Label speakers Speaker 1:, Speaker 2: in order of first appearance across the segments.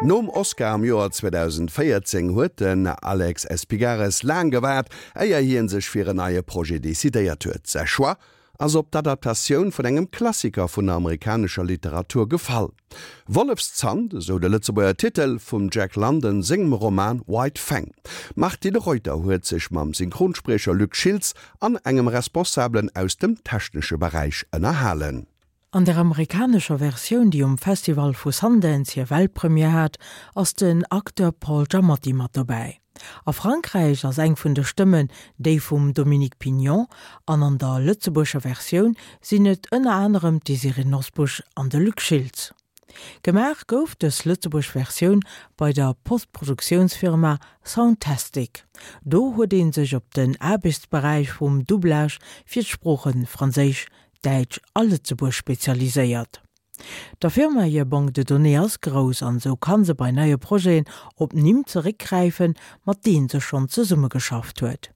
Speaker 1: Nom Oscar am Joer 2014 huet den Alex Espigares laang gewaart, éier hien sech fir en neie Projet decidéiert huet. Säi Choix ass op d'Adaptatioun vun engem Klassiker vun der amerikanescher Literatur gefall. Wollefszant, esou de Lëtzebuerger Titel vum Jack London sengem Roman White Fang. D'Martine Reuter huet sech mam Synchronspriecher Luc Schiltz an engem Responsabelen aus dem technesche Beräich ënnerhalen.
Speaker 2: An der amerikanescher Versioun, déi um Festival vu Sundance hir Weltpremière hat, ass den Acteur Paul Giamatti mat dobäi. A Frankräich ass eng vun de Stëmmen déi vum Dominique Pignon an an der lëtzebuergescher Versioun sinn et ënner anerem d'Désirée Nosbusch an de Luc Schiltz. Gemaach gouf dës lëtzebuergesch Versioun bei der Postproduktiounsfirma Soundtastic. Do huet ee sech op den Aarbechtsberäich vum Doublage fir d'Sprooche Franséisch, Däitsch a Lëtzebuerg spezialiséiert. Der Firma hir Banque de données ass grouss an esou kann se bei neie Projeten op Nimm zeréckgräifen, mat deenen se schonn zesummegeschafft huet.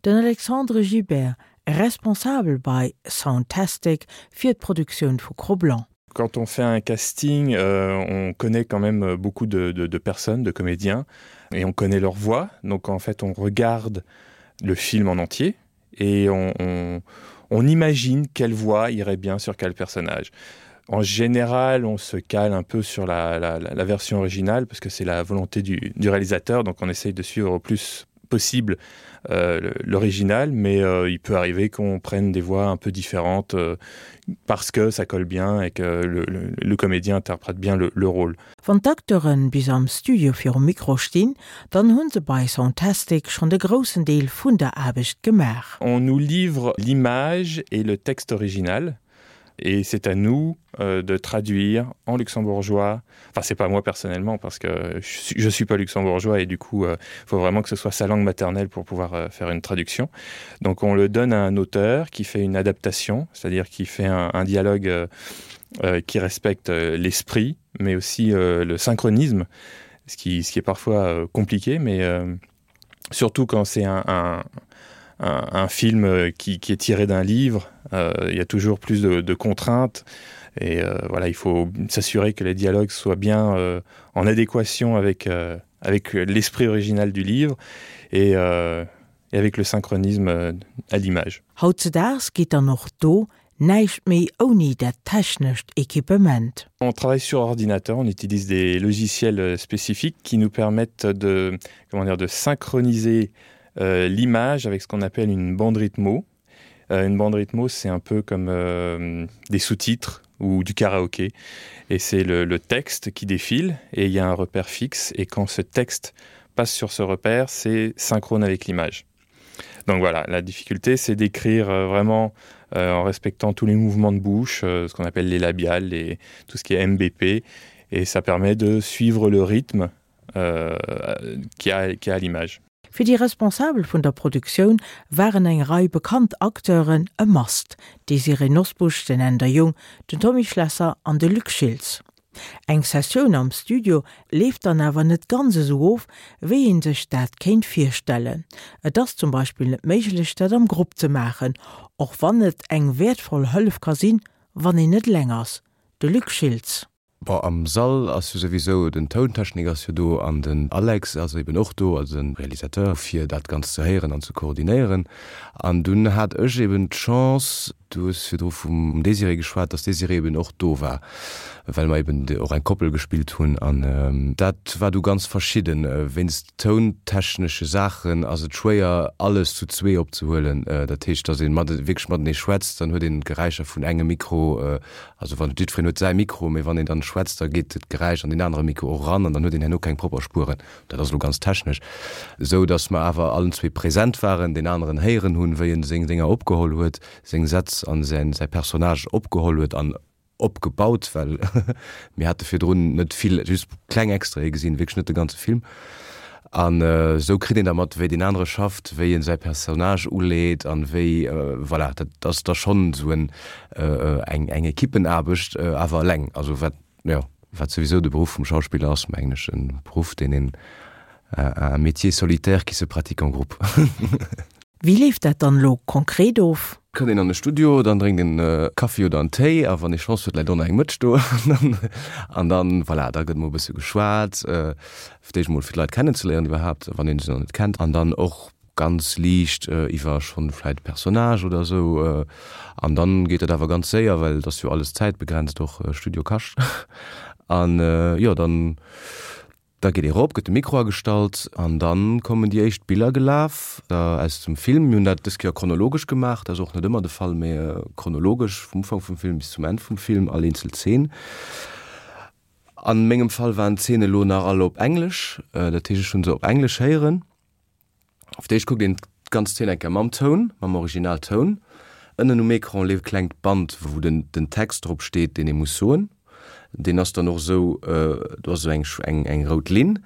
Speaker 2: Den Alexandre Gibert, Responsabel bei Soundtastic fir d'Produktioun vu Cro-Blanc.
Speaker 3: Quand on fait un casting, euh, on connaît quand même beaucoup de, de, de personnes, de comédiens et on connaît leur voix. Donc en fait, on regarde le film en entier et on, on, on imagine quelle voix irait bien sur quel personnage. En général, on se cale un peu sur la, la, la version originale parce que c'est la volonté du, du réalisateur, donc on essaye de suivre au plus possible euh, l'original, mais euh, il peut arriver qu'on prenne des voix un peu différentes euh, parce que ça colle bien et que le, le, le comédien interprète bien le, le rôle.
Speaker 2: Wann d'Acteuren bis am Studio virum Mikro stinn, dann hunn se bei Soundtastic schonn de groussen Deel vun der Aarbecht gemaach.
Speaker 3: On nous livre l'image et le texte original et c'est à nous euh, de traduire en luxembourgeois enfin c'est pas moi personnellement parce que je, je suis pas luxembourgeois et du coup euh, faut vraiment que ce soit sa langue maternelle pour pouvoir euh, faire une traduction donc on le donne à un auteur qui fait une adaptation c'est à dire qui fait un, un dialogue euh, euh, qui respecte euh, l'esprit mais aussi euh, le synchronisme ce qui ce qui est parfois euh, compliqué mais euh, surtout quand c'est un, un un, un film euh, qui, qui est tiré d'un livre euh, il y a toujours plus de, de contraintes et euh, voilà il faut s'assurer que les dialogues soient bien euh, en adéquation avec euh, avec l'esprit original du livre et euh, et avec le synchronisme euh, à l'image.
Speaker 2: Hautzedaags geet dann och do näischt méi ouni dat technescht Equipement.
Speaker 3: On travaille sur ordinateur, on utilise des logiciels euh, spécifiques qui nous permettent de, comment dire, de synchroniser euh, l'image avec ce qu'on appelle une bande rythmo. Euh, une bande rythmo, c'est un peu comme euh, des sous-titres ou du karaoké. Et c'est le, le texte qui défile et il y a un repère fixe. Et quand ce texte passe sur ce repère, c'est synchrone avec l'image. Donc voilà, la difficulté, c'est d'écrire euh, vraiment euh, en respectant tous les mouvements de bouche, euh, ce qu'on appelle les labiales et tout ce qui est MBP. Et ça permet de suivre le rythme euh, qui a, qui a l'image.
Speaker 2: Fir déi Responsabel vun der Produktioun waren eng Rei bekannt Acteuren e Must, d'Désirée Nosbusch, den Änder Jung, den Tommy Schlesser an de Luc Schiltz. Eng Sessioun am Studio leeft dann awer net ganz esou of, wéi een sech dat kéint virstellen. Et ass zum Beispill net méiglech, dat am Grupp ze maachen, och wann et eng wäertvoll Hëllef ka sinn, wann een net eleng ass. De Luc Schiltz.
Speaker 4: Bon, am Sall ass jo souwisou, den Tountechnik ass jo do an den Alex ass eben och do, also den Realisateur, fir dat Ganzt ze héieren an ze koordinéieren. An dunn hat ech eben d'Chance, du hues virdru vum Désirée geschwat, dass d'Désirée eben och do war, well mer eben och eng Koppel gespillt hunn. An dat war du ganz verschidden. Wéinst tountechnesche Saachen ass et schwéier, alles zu zwee opzehuelen. Dat heescht, dass ee mat, wierklech matenee schwätzt, dann huet een d'Geräischer vun engem Mikro Also wann jiddwereen huet säi Mikro, mee wann een dann schwätzt, da geet d'Geräisch an deen anere Mikro och eran an dann huet een herno keng propper Spueren. Dat ass elo ganz technesch, esou datt mer awer allen zwee present waren, deen aneren héieren hunn, wéi en seng Dénger opgeholl huet, seng Sätz an säin säi Personnage opgeholl huet an opgebaut, well mir hate virdrun net vill, just kleng Extraite gesinn, wierklech net de ganze Film. An esou kritt een da mat, wéi deen anere schafft, wéi en säi Personnage uleet an wéi, voilà, dat ass da schonn esou en, eng, eng Equippenaarbecht, awer eleng. Also wat, jo, wat souwisou de Beruff vum Schauspiller ass, mengen ech, e Beruff, deen een, un métier solitaire qui se pratique en groupe.
Speaker 2: Wéi leeft dat dann elo konkret of?
Speaker 4: Kënnt een an de Studio, dann drénkt een e Kaffi oder en Téi a wann ee Chance huet, läit och nach eng Mëtsch do. An dann, voilà, da gëtt mol e bësse geschwat, fir d'éischt mol fir d'Leit kennenzeléieren iwwerhaapt, wann een se nach net kennt, an dann och ganz liicht iwwer schonn vläit Personnage oder esou. An dann geet dat awer ganz séier, well et ass jo alles zäitbegrenzt, och Studio kascht. An jo, dann Da geet ee rop, gëtt de Mikro agestallt an dann kommen déi éischt Biller gelaf aus dem Film. Mir hunn dat dës Kéier chronologesch gemaach, dat ass och net ëmmer de Fall, mee chronologesch vum Ufank vum Film bis zum Enn vum Film, all eenzel Zeen. An mengem Fall waren d'Zeene lo nach all op Englesch, dat heescht ech hunn se op Englesch héieren. Auf d'éischt kuckt een d'ganz Zeen eng Kéier mam Toun, mam Originaltoun. Ënnen um Ecran leeft e klengt Band, wou den den Text drop steet, deen ee muss soen. Deen ass dann och esou, do ass esou eng eng eng rout Linn.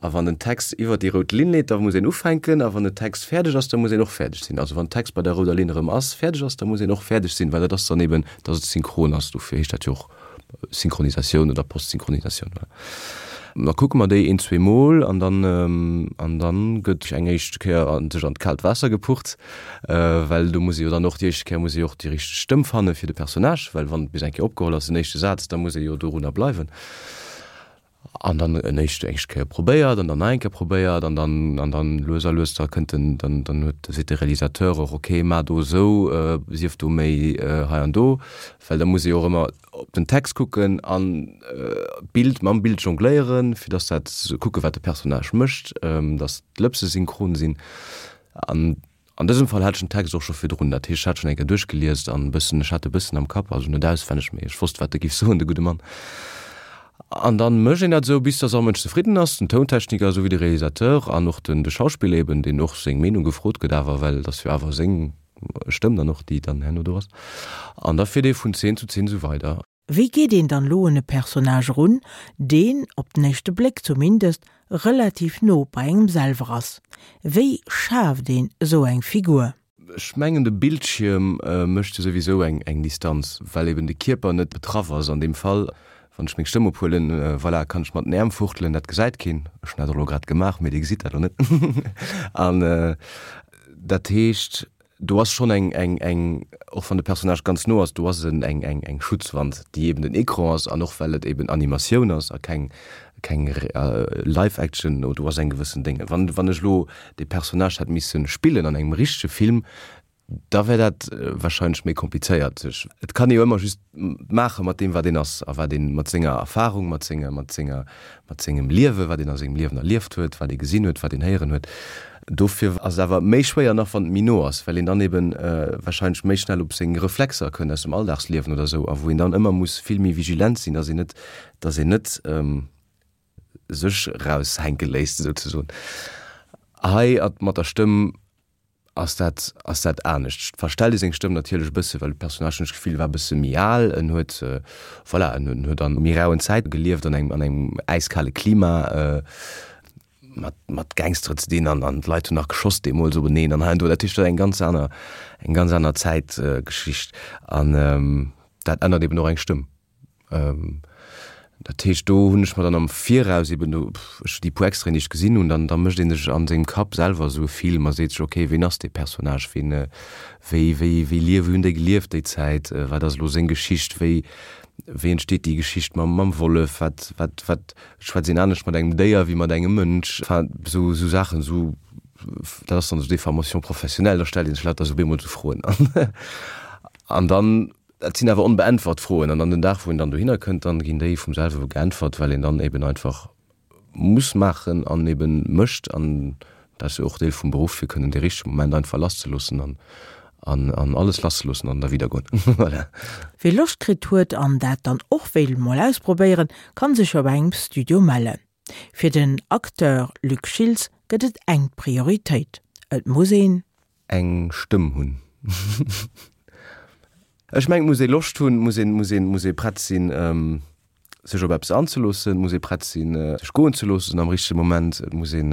Speaker 4: A wann den Text iwwer déi rout Linn leet, da muss een ufänken. A wann den Text fäerdeg ass, da muss een och fäerdeg sinn. Also wann den Text bei der rouder Linn erëm ass, fäerdeg ass, da muss een och fäerdeg sinn, well dat ass dann eben, dass et synchron ass. Dofir heescht dat jo och Synchronisatioun oder Postsynchronisatioun. Da kucke mer déi een, zwee Mol an dann, an dann gëtt eng éischt Kéier an sech an d'kaalt Waasser gepucht, well do muss ee jo dann och déi éischt Kéier muss ee jo och déi richteg Stëmm fanne fir de Personnage, well wann et bis eng Kéier opgeholl ass, den éischte Saz, da muss ee jo dorunner bleiwen. An dann en éischt eng Kéier probéiert an dann nach eng Kéier probéiert an dann an dann lues a lues da kënnt den dann dann huet seet de Realisateur och okay maach do esou, sief do méi hei an do, well da muss ee jo och ëmmer op den Text kucken an d'Bild mam Bild jongléieren, fir dass dat kucke wat de Personnage mécht, dass d'Lëpse synchron sinn an An dësem Fall hat ech den Text och scho virdrun, dat heescht, ech hat schonn eng Kéier duerchgeliest an e bëssen, ech hat e bëssen am Kapp, also net auswenneg, mee ech wosst, wat e giff soen, de gudde Mann. An dann mécht een dat esou, bis dass all Mënsch zefridden ass, den Tountechniker esou wéi de Realisateur an och den de Schauspiller eben, deen och seng Meenung gefrot gëtt awer, well et ass jo awer seng Stëmm dann och, déi dann herno do ass. An da fiert ee vun Zeen zu Zeen esou weider.
Speaker 2: Wéi geet een dann elo un e Personnage erun, deen, op den éischte Bléck zumindest, relativ no bei engem selwer ass? Wéi schaaft een esou eng Figur?
Speaker 4: Ech mengen de Bildschierm mécht jo souwisou eng Distanz, well eben de Kierper net betraff ass. An deem Fall, wann ech meng Stëmm ophuelen, voilà, kann ech mat den Äerm fuchtelen, dat gesäit keen. Ech hunn dat och elo grad gemaach, mee dir gesitt dat elo net. An dat heescht, Do ass schonn eng, eng, eng, och wann de Personnage ganz no ass, do ass en, eng, eng, eng Schutzwand, déi eben den Ecran ass an och well et eben Animatioun ass a keng, keng Live-Action, do ass eng gewëssen Dénge. Wann, wann ech elo dee Personnage hätt misse spillen an engem richtege Film, da wär dat wahrscheinlech méi komplizéiert. Et kann ee jo ëmmer just maache mat deem, wat een ass a wat een mat senger Erfahrung, mat senger, mat senger, mat sengem Liewen, wat een a sengem Liewen erlieft huet, wat ee gesinn huet, wat een héieren huet. Dofir ass et awer méi schwéier nach, wann et méi no ass, well een dann eben wahrscheinlech méi schnell op seng Reflexer kënnt aus dem Alldagsliewen oder esou a wou een dann ëmmer muss vill méi vigilent sinn, dass een net, dass een net sech eraushänke léisst souzesoen. Hei mat der Stëmm ass dat, ass dat anescht. Verstellt ee seng Stëmm natierlech e bësse, well de Personnage, hunn ech d'Gefill, war e bësse méi al, en huet, voilà, en huet an méi rauen Zäite gelieft, an engem, an engem äiskale Klima, mat, mat Gangsteren ze dinn an, an d'Leit hunn nach geschoss deemools openeen an hei an do. Dat heescht, dat ass eng ganz aner, eng ganz aner Zäitgeschicht an dat ännert eben och eng Stëmm. Dat heescht, do hunn ech mer dann am Viraus eben do, ech déi puer Extraiten, déi ech gesinn hunn, dann da mécht ee sech a sengem Kapp selwer esou e Film a seet sech, okay, ween ass dee Personnage, ween, wéi, wéi, wéi lie wéi hunn déi gelieft déi Zäit, wat ass elo seng Geschicht, wéi, wéi entsteet déi Geschicht mam, mam Wollef, wat, wat, wat schwätzt een anescht mat engem Déier wéi mat engem Mënsch, enfin esou esou Saachen, esou dat ass dann esou Déformation professionnelle, da stellt ee sech lauter esou bemol esou Froen an an dann, dat sinn awer onbeäntwert Froen an dann den Dag wou een dann dohinner kënnt, dann ginn déi vum selwe geäntwert, well een dann eben einfach muss maachen an eben mécht an dat ass jo och Deel vum Beruff fir kënnen dee richtege Moment einfach lasszeloossen an an an alles lasszeloossen an derwider goen. Voilà.
Speaker 2: Wie Loscht kritt huet an dat dann och wéilt mol ausprobéieren, kann sech jo bei engem Studio mellen. Fir den Acteur Luc Schiltz gëtt et eng Prioritéit, et muss een.
Speaker 4: Eng Stëmm hunn. Ech mengen, et muss ee Loscht hunn, et muss een, muss een, muss ee prett sinn, sech op eppes anzeloossen, et muss ee prett sinn, sech goen ze loossen am richtege Moment, et muss ee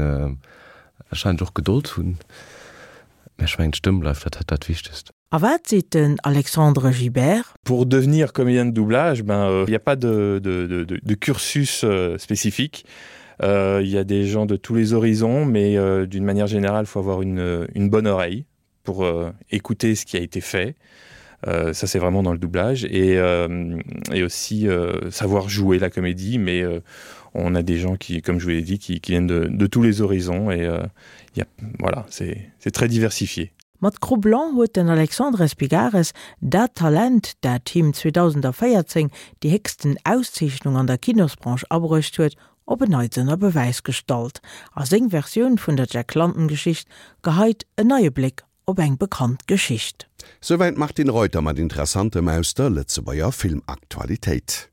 Speaker 4: warscheinlech och Gedold hunn. Mä ech mengen, d'Stëmm bleift dat dat Wichtegst.
Speaker 2: A wat seet den Alexandre Gibert?
Speaker 3: Pour devenir comédien de doublage, ben il y a pas de, de, de, de, de cursus euh, spécifique. Euh, il y a des gens de tous les horizons, mais euh, d'une manière générale, il faut avoir une, une bonne oreille. pour euh, écouter ce qui a été fait. Euh, ça c'est vraiment dans le doublage et, euh, et aussi euh, savoir jouer la comédie mais euh, on a des gens qui comme je vous l'ai dit qui, qui viennent de, de tous les horizons et euh, y a, voilà c'est très diversifié.
Speaker 2: Mat Gros-Blanc huet den Alexandre Espigares dat Talent, dat him 2014 déi héchsten Auszeechnung an der Kinosbranche abruecht huet, op en Neits ënner Bewäis gestallt a seng Versioun vun der Jack London Geschicht geheit en neie Bléck op eng bekannt Geschicht.
Speaker 1: Souwäit d'Martine Reuter mat Interessantem aus der Lëtzebuerger Filmaktualitéit.